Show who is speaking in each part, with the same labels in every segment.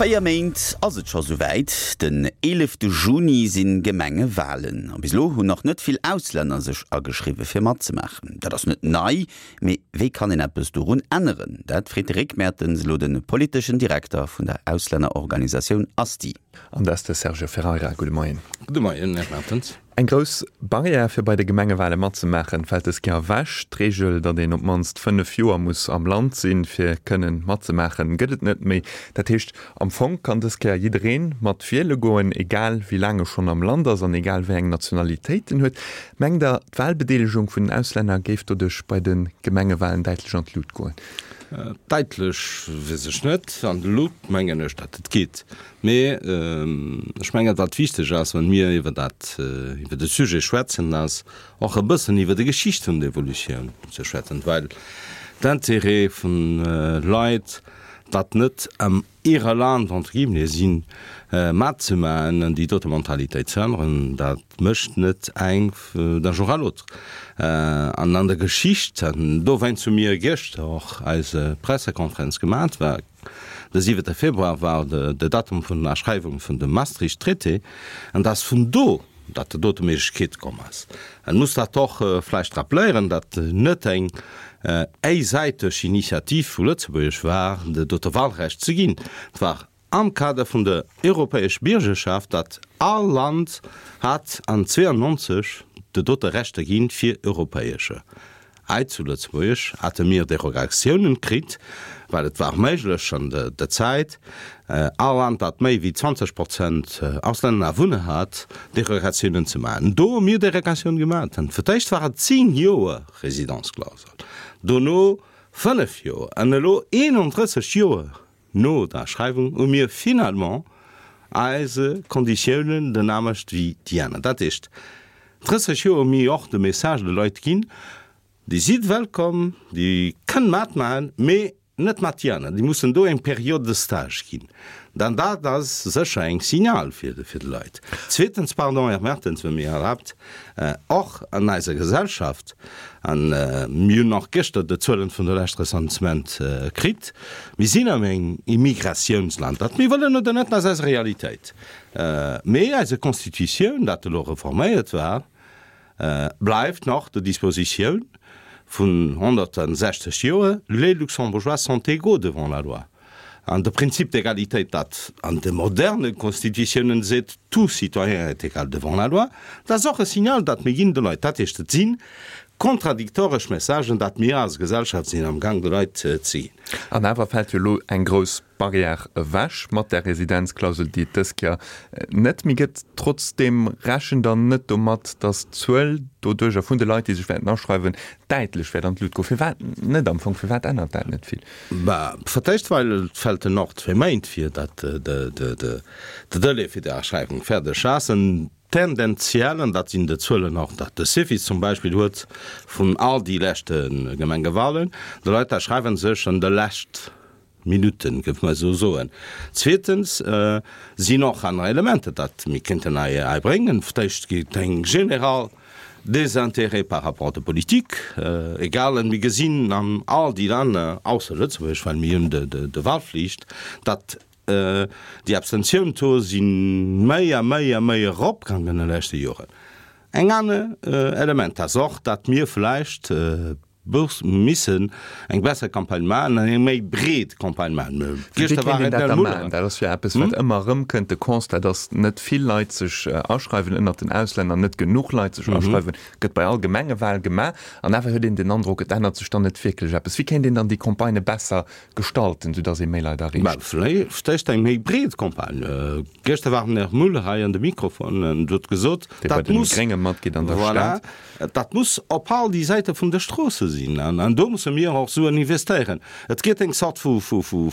Speaker 1: 4 Méint ass et scho souwäit, den 11 Juni si Gemengewalen. A bis elo hunn nach net vill Auslänner sech ageschriwwe fir matzemaachen. Dat ass net nei, mee wéi kann een eppes dorun änneren? Dat freet de Rick Mertens elo de politeschen Direkter vun der Auslännerorganisatioun ASTI.
Speaker 2: An dat ass de Sergio Ferreira. Gudde Moien.
Speaker 3: Gudde Moien, Här Mertens.
Speaker 2: Eng grouss Barrière fir bei de Gemengewale matzemaachen, fält dës Kéier ewech. D'Reegel, datt een op d'mannst 5 Joer muss am Land sinn, fir kënnen matzemaachen, gëtt et net méi. Dat heescht, am Fong kann dës Kéier jiddereen mat wiele goen, egal wéi laang e schonn am Land ass an egal wéi eng Nationalitéit en huet. Mengt Der, d'Walbedeelegung vun den Auslänner géif doduerch bei de Gemengewalen däitlech an d'Lut goen?
Speaker 3: Däitlech weess ech net. An d'Lut mengen ech, datt et geet. Mee ech mengen, wat wichteg ass, wann mir iwwer dat, iwwer de Sujet schwätzen, ass och e bëssen iwwer déi Geschicht vun der Evolutioun ze schwätzen, well d'Intérêt vun Leit, dat net am ihre Land, entre guillemets, sinn, matzemaachen an déi dote Mentalitéit ze änneren, dat mécht net eng d'un jour à l'autre. An an der Geschicht, an dowéinst hu mir gëschter och eise Pressekonferenz gemat, war, De siwente Februar war de Datum vun der Aschreiwung vun dem Maastricht-Traité, an et ass vun do, datt déi dote Méiglechkeet komm ass. Et muss dat och vläicht rappeléieren, datt net eng éisäiteg Initiativ vu Lëtzebuerg war, de dote Wahlrecht ze ginn. Et war am Kader vun der europäesch Biergerschaft, datt all Land hat an 92 de dote Rechter ginn fir europäesche Hei zu Lëtzebuerg hate mir Derogatiounen kritt, well et war méiglech an der Zäit, all Land dat méi wéi 20 Prozent Auslänner Awunner hat, Derogatiounen ze maachen. Do hu mir Derogatiounen gemaach. Fir d'éischt war et 10 Joer Résidence-Klausel, dono 5 Joer an elo 31 Joer no der Aschreiwung hu mir finalement eise Konditiounen den anescht wéi déi aner. Dat heescht, 30 Joer hu mir och de Message de Leit ginn, Dir sidd wëllkomm, Dir kënnt matmaachen, mee net mat déi aner. Déi mussen do eng Période de stage ginn. Dann dat ass sécher eng Signal fir de Leit. Zweetens, pardon, Här Mertens, wann Dir mir erlaabt, och an eiser Gesellschaft, an mir hunn och gëschter de Zuelen vun der lescht Recensement kritt, mir sinn am eng Immigratiounsland, dat mir wëllen oder net, dat ass eis Realitéit. Mee eise Constitutioun, dat elo reforméiert war, bleift nach der Dispositioun vun 160 Joer, Les Luxembourgeois sont égaux devant la loi. An de Prinzip d'égalité, dat an de moderne Constitutiounen seet, tout citoyen est égal devant la loi, dat ass och e Signal, dat mir ginn de Leit. Dat heescht, et si kontradiktoresch Messagen, dat mir als Gesellschaft sinn amgang de Leit ze ginn.
Speaker 2: An awer fält jo elo eng grouss Barrière ewech mat där Residenzklausel, déi et dës Kéier net méi gëtt. Trotzdeem rechent Der net domat, datt d'Zuel doduercher vun de Leit, déi sech wäerten aschreiwen, däitlech wäert an d'Lut goen? Firwat net am Fong? Firwat ännert dat net vill?
Speaker 3: Bah, fir d'éischt, well et fällt en och zwéi Méint fir dat de Delai fir déi Aschreiwung fäerdeg ass. En tendenziell, an dat sinn de Zuelen och, dat de Cefis zum Beispill huet vun all déi leschte Gemengewahlen, de Leit aschreiwe sech an de lescht Minutten, géif mer esou soen. Zweetens sinn och aner Elementer, dat mir kéinten hei bréngen. Fir d'éischt geet eng general Désintérêt par rapport der Politik, egal, mir gesinn an all déi Länner, ausser Lëtzebuerg, well mir hunn de Wahlflicht, datt déi Abstentioun-Taux si méi a méi a méi eropgaangen an de leschte Joren. Eng aner Element ass och, datt mir vläicht Bourse missen eng besser Campagne maachen an eng méi breet Campagne maachen.
Speaker 2: Wéi kéint een dat da maachen? Dat ass jo eppes, wat ëmmer erëmkënnt, de Constat, datt net vill Leit sech aschreiwen ënnert den Auslänner, net genuch Leit sech aschreiwen, gëtt bei all Gemengewal gemaach. An awer huet een den Androck, et ännert sech dann net wierklech eppes. Wéi kéint een dann déi Campagnë besser gestalten, soudatt ee méi Leit erreecht?
Speaker 3: Vläicht eng méi breet Campagne. Gëschter war den Här Muller hei an de Mikrofon an huet gesot,
Speaker 2: Dee bei den Grénge matgeet an der
Speaker 3: Stad. Dat muss op all déi Säite vun de Stroosse sinn an do musse mir och Suen investéieren. Et geet eng Zort vu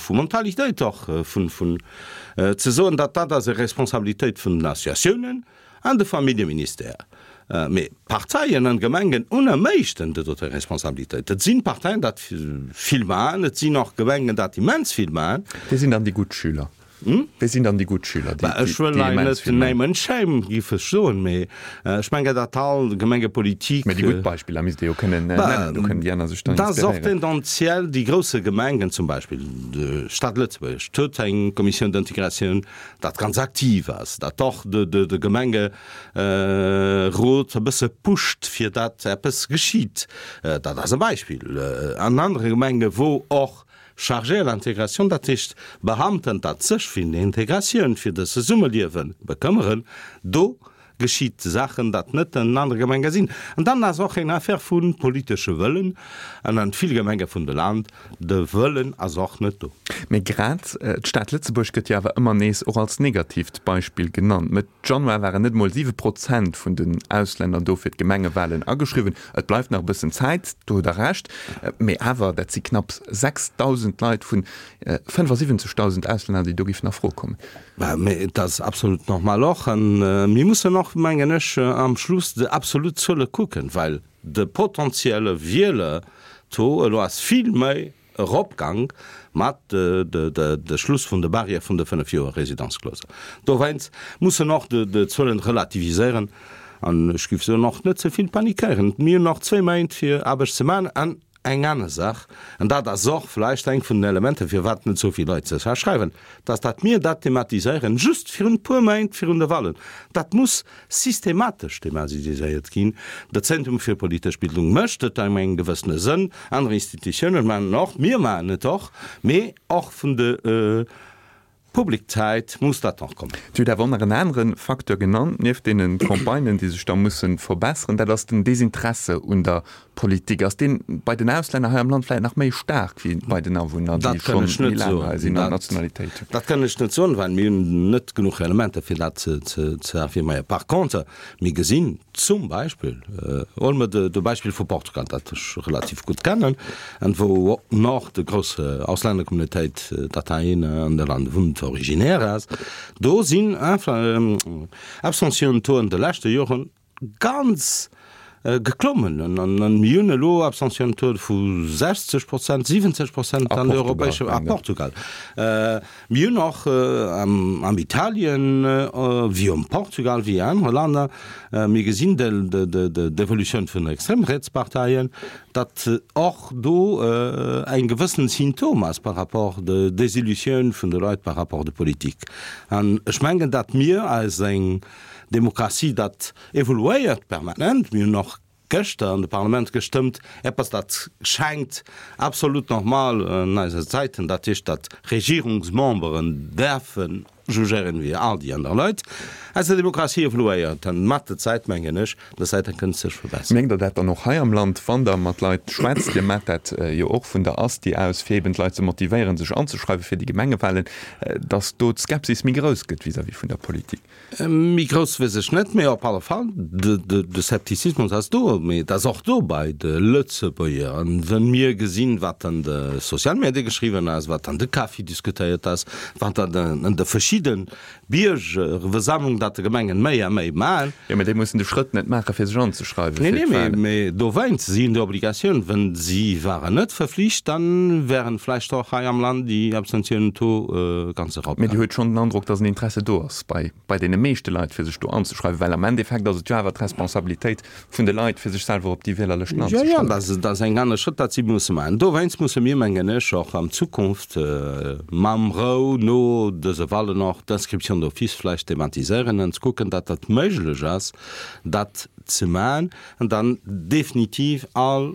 Speaker 3: Mentalitéit och vun ze soen, datt dat ass e Responsabilitéit vun den Associatiounen an de Familljeministère. Mee d'Parteien an d'Gemengen hunn am meeschten déi dote Responsabilitéit. Et sinn d'Parteien, dat vill maachen, et sinn och Gemengen, dat immens vill maachen.
Speaker 2: Dir sinn dann déi gutt Schüler. Wie sinn dann déi gutt Schüler, déi
Speaker 3: Ech wëll hei
Speaker 2: immens
Speaker 3: net
Speaker 2: vill
Speaker 3: name and shame, géif ech soen, mee ech mengen, datt all Gemengepolitik.
Speaker 2: Mee déi gutt Beispiller misst Dir jo kënnen nennen, do kënnen déi aner sech dann
Speaker 3: Dat ass och
Speaker 2: inspiréieren.
Speaker 3: tendenziell déi grousse Gemengen, zum Beispill d'Stad Lëtzebuerg huet eng Commission d'intégration, dat ganz aktiv ass, dat och de Gemengerot e bësse pusht, fir datt eppes geschitt. Dat ass e Beispill. An anere Gemenge wou och Chargé à l'intégration, dat heescht Beamten, dat sech fir d'Integratioun, fir de Zesummeliewe bekëmmeren, do geschitt Saachen, dat net an anere Gemenge sinn. An dann ass och eng Affaire vu politesche Wëllen, an an vill Gemenge vun de Land, de Wëllen ass och net do.
Speaker 2: Mee grad d'Stad Lëtzebuerg gëtt jo awer ëmmer nees och als negatiivt Beispill genannt. Mëtt Januar waren net emol 7 Prozent vun den Auslänner do fir d'Gemengewalen ageschriwwen. Et bleift nach e bëssen Zäit, do hutt Der Recht, mee awer, dat si knapps 6.000 Leit vun 75.000 Auslänner, déi do géifen a Fro kommen.
Speaker 3: Mee et ass absolut normal och. A mir mussen och, mengen ech, am Schluss déi absolut Zuele kucken, well de potentielle Wieler-Taux elo ass vill méi eropgang mat de Schluss vun de Barrière vun de 5 Joer Résidence-clause. Dowéinst muss en och de Zuelen relativiséieren an ech géif soen och net ze vill panikéieren. Mir hunn nach zwéi Méint fir Aarbecht ze maachen. An eng aner Saach, an dat ass och vläicht eng vun den Elementer firwat net esou vill Leit sech aschreiwen, dass dat mir dat thematiséieren just virun e puer Méint virun de Wahlen, dat muss systematesch thematiséiert ginn. De Zentrum fir politesch Bildung mécht et an engem gewëssene Sënn, aner Institutiounen maachen et och, mir maachen et och, mee och vun de Publiczäit muss dat och kommen.
Speaker 2: Dir hutt awer och nach en anere Facteur genannt, nieft deene Campagnen, déi sech da musse verbesseren, dat ass den Desinteresse un der Politik. Ass deen bei den Auslänner hei am Land vläit nach méi staark wéi bei den Awunner, déi
Speaker 3: Dat kann
Speaker 2: schonn
Speaker 3: ech
Speaker 2: méi
Speaker 3: net
Speaker 2: laang hei
Speaker 3: soen.
Speaker 2: sinn an
Speaker 3: Dat,
Speaker 2: d'Nationalitéit hunn?
Speaker 3: dat kann ech net soen, well mir hunn net genuch Elementer, fir dat ze, ze, ze affirméieren. Par contre, mir gesinn zum Beispill, huele mer de, de Beispill vu Portugal, dat ech relativ gutt kennen, an wou och de grouss Auslännercommunautéit, dat hei an de Land wunnt, originaire ass, do sinn Abstentionstauxen de leschte Joren ganz geklommen an mir hunn elo Abstentionstaux vu 60 Prozent, 70 Prozent an der europäescher, a Portugal. Mir hunn och am Italien wéi am Portugal wéi anere Länner, mir gesinn d'Evolutioun vun den Extremrietsparteien, datt och do eng gewëssen Symptom ass par rapport de Desillusioun vun de Leit par rapport de Politik. An ech mengen, datt mir eis eng Demokratie, dat evoluéiert permanent. Mir hunn och gëschter an de Parlament gestëmmt, eppes dat schengt absolut normal an eise Zäiten, dat heescht, datt Regierungsmemberen däerfe jugéieren wéi all déi aner Leit. Eise Demokratie evoluéiert an mat der Zäit, mengen ech, der Zäit kënnt sech verbesseren.
Speaker 2: Mierkt Der dat dann och hei am Land, wann Der mat Leit schwätzt? Dir maacht dat jo och vun der Asti aus, fir eben d'Leit ze motivéieren, sech anzeschreiwen fir déi Gemengewahlen, datt do d'Skepsis méi grouss gëtt vis-à-vis vun der Politik?
Speaker 3: Méi grouss weess ech net, mee op alle Fall, de Scepticismus ass do, mee et ass och do bei de Lëtzebuerger. An wa mir gesinn, wat an de Sozialmedie geschriwwen ass, wat an de Café diskutéiert ass, wat an de verschidde Biergerversammlungen, dat de Gemengen méi a méi maachen.
Speaker 2: Jo, mee déi mussen de Schrëtt net maachen, fir sech anzeschreiwen
Speaker 3: fir d'Wahlen. Nee, nee, mee dowéinst, si hunn déi Obligatioun. Wa si waren net verflicht, dann wären vläicht och hei am Land déi Abstentionentaux ganz
Speaker 2: erop Mee Dir huet schonn den Androck, dass en Interesse do ass bei, bei deene meeschte Leit, fir sech do anzeschreiwen? Well am Endeffekt ass et jo awer d'Responsabilitéit vun de Leit, fir sech selwer op déi Wielerlëschten
Speaker 3: Jo, jo,
Speaker 2: anzeschreiwen.
Speaker 3: dat ass eng aner Schrëtt, dat si musse maachen. Dowéinst musse mir, mengen ech, och an Zukunft mam Rou no dëse Wahlen och d'Inscription d'office vläicht thematiséieren an ze kucken, datt dat méiglech ass, dat ze maachen an dann definitiv all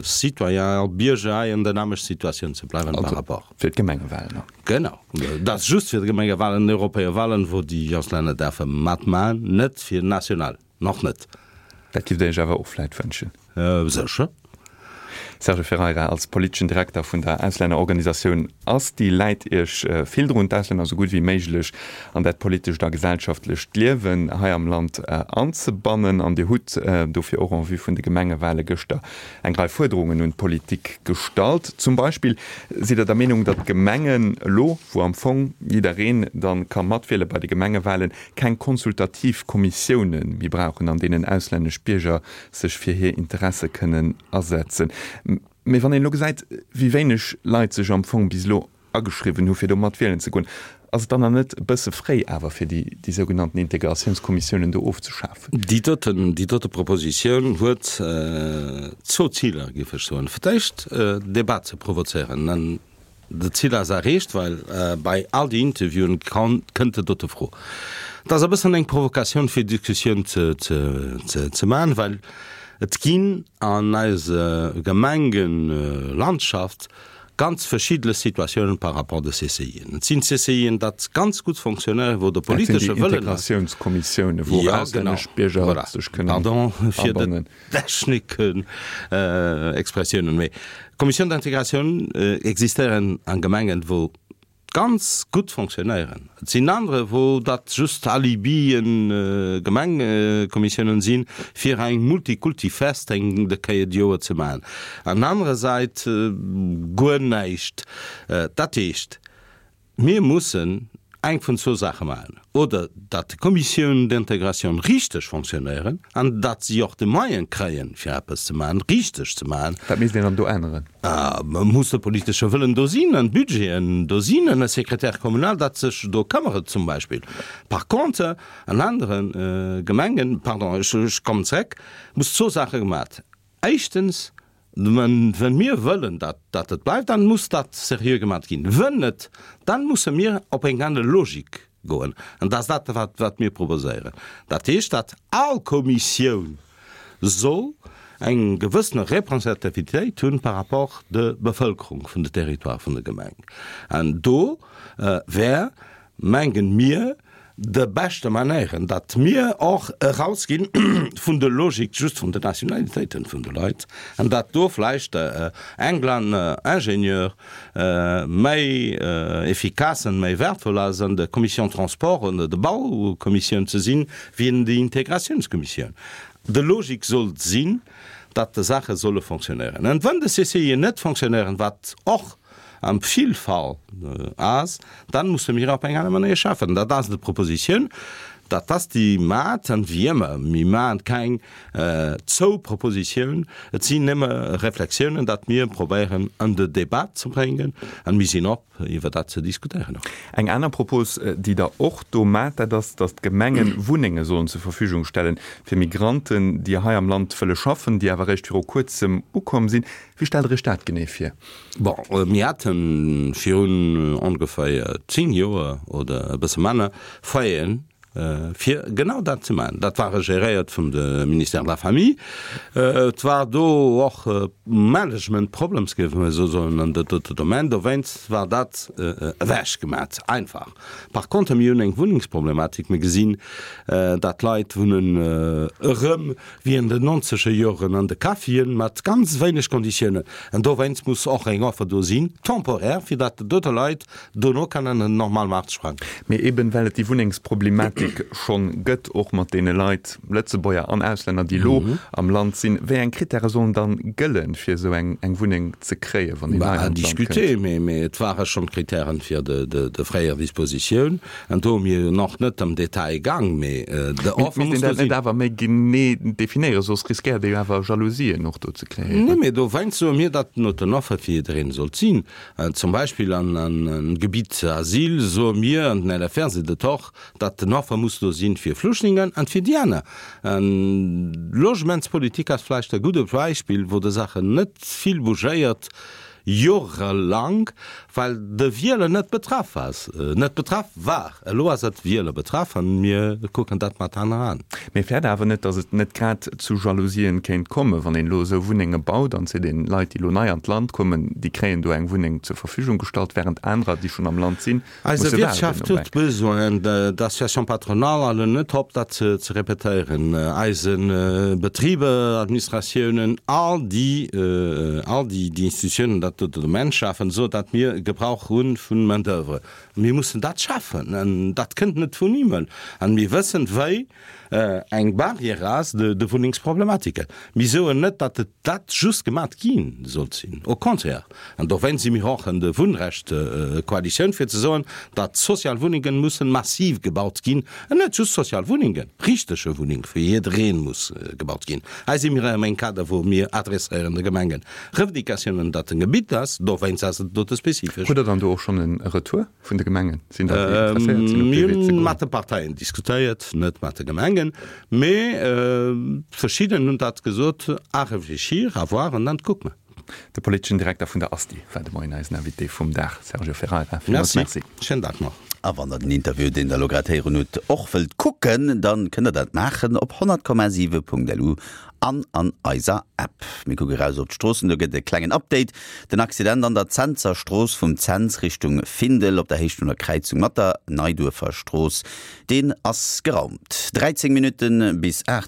Speaker 3: Citoyen, all Bierger hei an der nämmlecht Situatioun ze bleiwen par rapport.
Speaker 2: Also fir d'Gemengewahlen och.
Speaker 3: Genau, dat ass just fir d'Gemengewahlen, d'Europäewahlen, wou déi Auslänner däerfe matmaachen, net fir national. Nach net.
Speaker 2: Dat giff der iech awer och vläit wënschen?
Speaker 3: Sécher.
Speaker 2: Serge Ferreira, als politeschen Direkter vun der Auslännerorganisatioun ASTI läit Iech vill drun, d'Auslänner esou gutt wéi méiglech an dat politescht a gesellschaftlecht Liewen hei am Land anzebannen. An Dir hutt dofir och en vue vun de Gemengewale gëschter eng Rei Fuerderungen un d'Politik gestallt. Zum Beispill sidd Der der Meenung, datt d'Gemengen elo, wou am Fong jiddereen dann ka matwiele bei de Gemengewalen, keng konsultativ Kommissioune méi brauchen, an deenen auslännesch Bierger sech fir hir Interesse kënnen asetzen. Mee wann een elo gesäit, wéi wéineg Leit sech am Fong bis elo ageschriwwen hu fir do mat wielen ze goen. Ass et dann nach net e bësse fréi awer, fir déi, déi sougenannten Integratiounskommissiounen do ofzeschafen?
Speaker 3: Déi doten, déi dote Propositioun huet zwou Ziler, géif ech soen. Fir d'éischt, Debat ze provozéieren. An dat Zil ass erreecht, well bei all déi Interviewen kënnt déi dote Fro. Et ass e bëssen eng Provokatioun, fir Diskussioun ze, ze, ze, ze maachen, well et ginn an eiser Gemengelandschaft Ganz verschiddene Situatiounen par rapport de CCIen. Et sinn CCIen, dat ganz gutt fonctionnéieren, wou de politesche
Speaker 2: Wëllen ass. Dat sinn déi Integratiounskommissiounen, wou och auslännesch Bierger sech kënnen abannen.
Speaker 3: Pardon fir de Techniken, Expressiounen, mee Commissions d'intégration existéieren a Gemengen, wou ganz gutt fonctionnéieren. Et sinn anere wou dat just Alibien, Gemengekommissiounen sinn, fir eng Multikulti-Fest eng de Kéier d'Joer ze maachen. An anerer Säit guer näischt. Dat heescht, mir mussen eng vun zwou Saache maachen, oder datt d'Commissions d'intégration richteg fonctionnéieren an datt si och de Moyen kréien, fir eppes ze maachen, richteg ze maachen.
Speaker 2: Wat misst een dann do änneren?
Speaker 3: Muss de politesche Wëllen do sinn an d'Budgeten do sinn an e Secrétaire communal, dat sech do këmmeret zum Beispill. Par contre, an anere Gemengen, pardon, ech kommen zeréck, muss zwou Saache gemat. Éischtens, Wenn mir wëllen, datt dat et bleift, dann muss dat seriö gemat ginn. Wenn net, dann musse mir op eng aner Logik goen. An dat ass dat, wat, wat mir proposéieren. Dat heescht, datt all Kommissioun soll eng gewëssene Representativitéit hunn par rapport de Bevëlkerung vun de Territoire vun de Gemeng. An do wär, mengen mir, de beschte Manéieren, datt mir och erausginn vun de Logik just vun de Nationalitéiten vun de Leit an datt do vläicht England Ingenieur méi efficace an méi wertvoll ass an der Commission Transport oder der Baukommissioun ze sinn, wéi an der Integratiounskommissioun. De Logik sollt sinn, datt de Saache solle fonctionnéieren. An wann de CCIen net fonctionnéieren, wat och am vill Fall ass, dann musse mir op eng aner Manéier schaffen. Dat ass de Propositioun, dat ass déi mat, an wéi ëmmer, mir maachen keng zou Propositioun, et sinn nëmme Reflexiounen, dat mir probéieren an de Débat ze bréngen, an mir sinn op iwwer dat ze diskutéieren och.
Speaker 2: Eng aner Propos, déi Der och do maacht, dat ass, datt d'Gemengen Wunnenge sollen zur Verfügung stellen fir Migranten, déi hei am Land wëlle schaffen, déi awer eréischt viru kuerzem ukomm sinn. Wéi stellt Der Iech dat genee vir?
Speaker 3: Bon, mir hate virun ongeféier 10 Joer oder e bësse manner Foyeren, fir genau dat ze maachen. Dat war geréiert vum de Ministère de la Famille. Et war do och Management Problems, géife mer esou soen, an dat dote Domaine. Dowéinst war dat ewechgemat einfach. Par contre, mir hunn eng Wunnengsproblematik. Mir gesinn, dat d'Leit wunnen erëm wéi an den nonzeger Joren an de Caféen, mat ganz wéineg Konditiounen. An dowéinst muss och eng Offer do sinn, temporaire, fir datt dote Leit dono kënnen an den normale Maart sprangen.
Speaker 2: Mee eben well et déi Wunnengsproblematik schonn gëtt, och mat deene Leit, Lëtzebuerger an Auslänner, déi elo am Land sinn, wéi eng Krittäre sollen dann gëllen, fir esou eng Wunneng ze kréien, wann een nei
Speaker 3: an d'Land kënnt? À discuter, mee et ware schonn d'Krittären fir de fréier Dispositioun. An do hu mir jo nach net am Detail gaang, mee
Speaker 2: de Offer muss do sinn. Misst een dat net awer méi genee definéieren, soss riskéiert ee jo awer Jalousien och do ze kreéieren.
Speaker 3: Nee, mee dowéinst soe mir, datt not den Offer fir jiddereen sollt sinn. Zum Beispill an Gebitt Asyl soe mir, an den LFR seet et och, datt den Offer muss do sinn fir Flüchtlingen an fir déi aner. An d'Logementspolitik ass vläicht e gudde Beispill, wou de Saachen net vill bougéiert, Jorelang, well de Wieler net betraff ass, net betraff war. Elo ass et Wieler betraff an mir kucken dat mat aner Aen.
Speaker 2: Mee fäert awer net, datt et net grad zu Jalousien kéint kommen, wann een elo esou Wunnenge baut an seet een, Leit, déi elo nei an d'Land kommen, déi kréien do eng Wunneng zur Verfügung gestallt, während anerer, déi schonn am Land sinn,
Speaker 3: Eise Wirtschaft huet Besoin, d'Association patronale halen net op dat ze repetéieren, eise Betriber, Administratiounen, all déi, all déi Institutiounen dat do de Domaine schafen, esou datt mir Gebrauch hu vun Main d'oeuvre. Mir mussen dat schafen an dat kënnt net vun Himmel. An mir wëssen, wéi eng Barrière ass de Wunnengsproblematiken. Mir soen net, datt et dat just gemat gi sollt sinn, au contraire. An dowéinst si mir och an de Wunnrecht-Koalitioun, fir ze soen, datt sozial Wunnengen mussen massiv gebaut ginn, an net just sozial Wunnengen, richtege Wunneng fir jiddereen muss gebaut ginn. Hei si mir erëm engem Kader, wou mir adresséieren de Gemengen Revendicatiounen, datt en Gebitt. Gebitt ass, dowéinst ass et dote spezifesch.
Speaker 2: Hutt Der dann do och schonn e Retour vun de Gemengen?
Speaker 3: Sinn der déi interesséiert sinn op dee Wee ze goen? Mir hunn mat de Parteien diskutéiert, net mat de Gemengen, mee verschidden hunn dat gesot, à réfléchir, à voir an dann kucke mer.
Speaker 2: De politeschen Direkter vun der ASTI war de Moien eisen Invité vum Dag, Sergio Ferreira.
Speaker 3: Villmools Merci. Schéinen Dag nach.
Speaker 1: A wann der den Interview, deen der elo grad héieren hutt, och wëllt kucken, dann kënnt der dat maachen op 100,7.lu an an eiser App. Mir kucke raus op d'Stroossen, do gëtt e klengen Update. Den Accident an der Zenser Strooss vum Zens Richtung Findel op der Héicht vun der Kräizung mat der Neiduerfer Strooss, deen ass geraumt. 13 Minutte bis 8.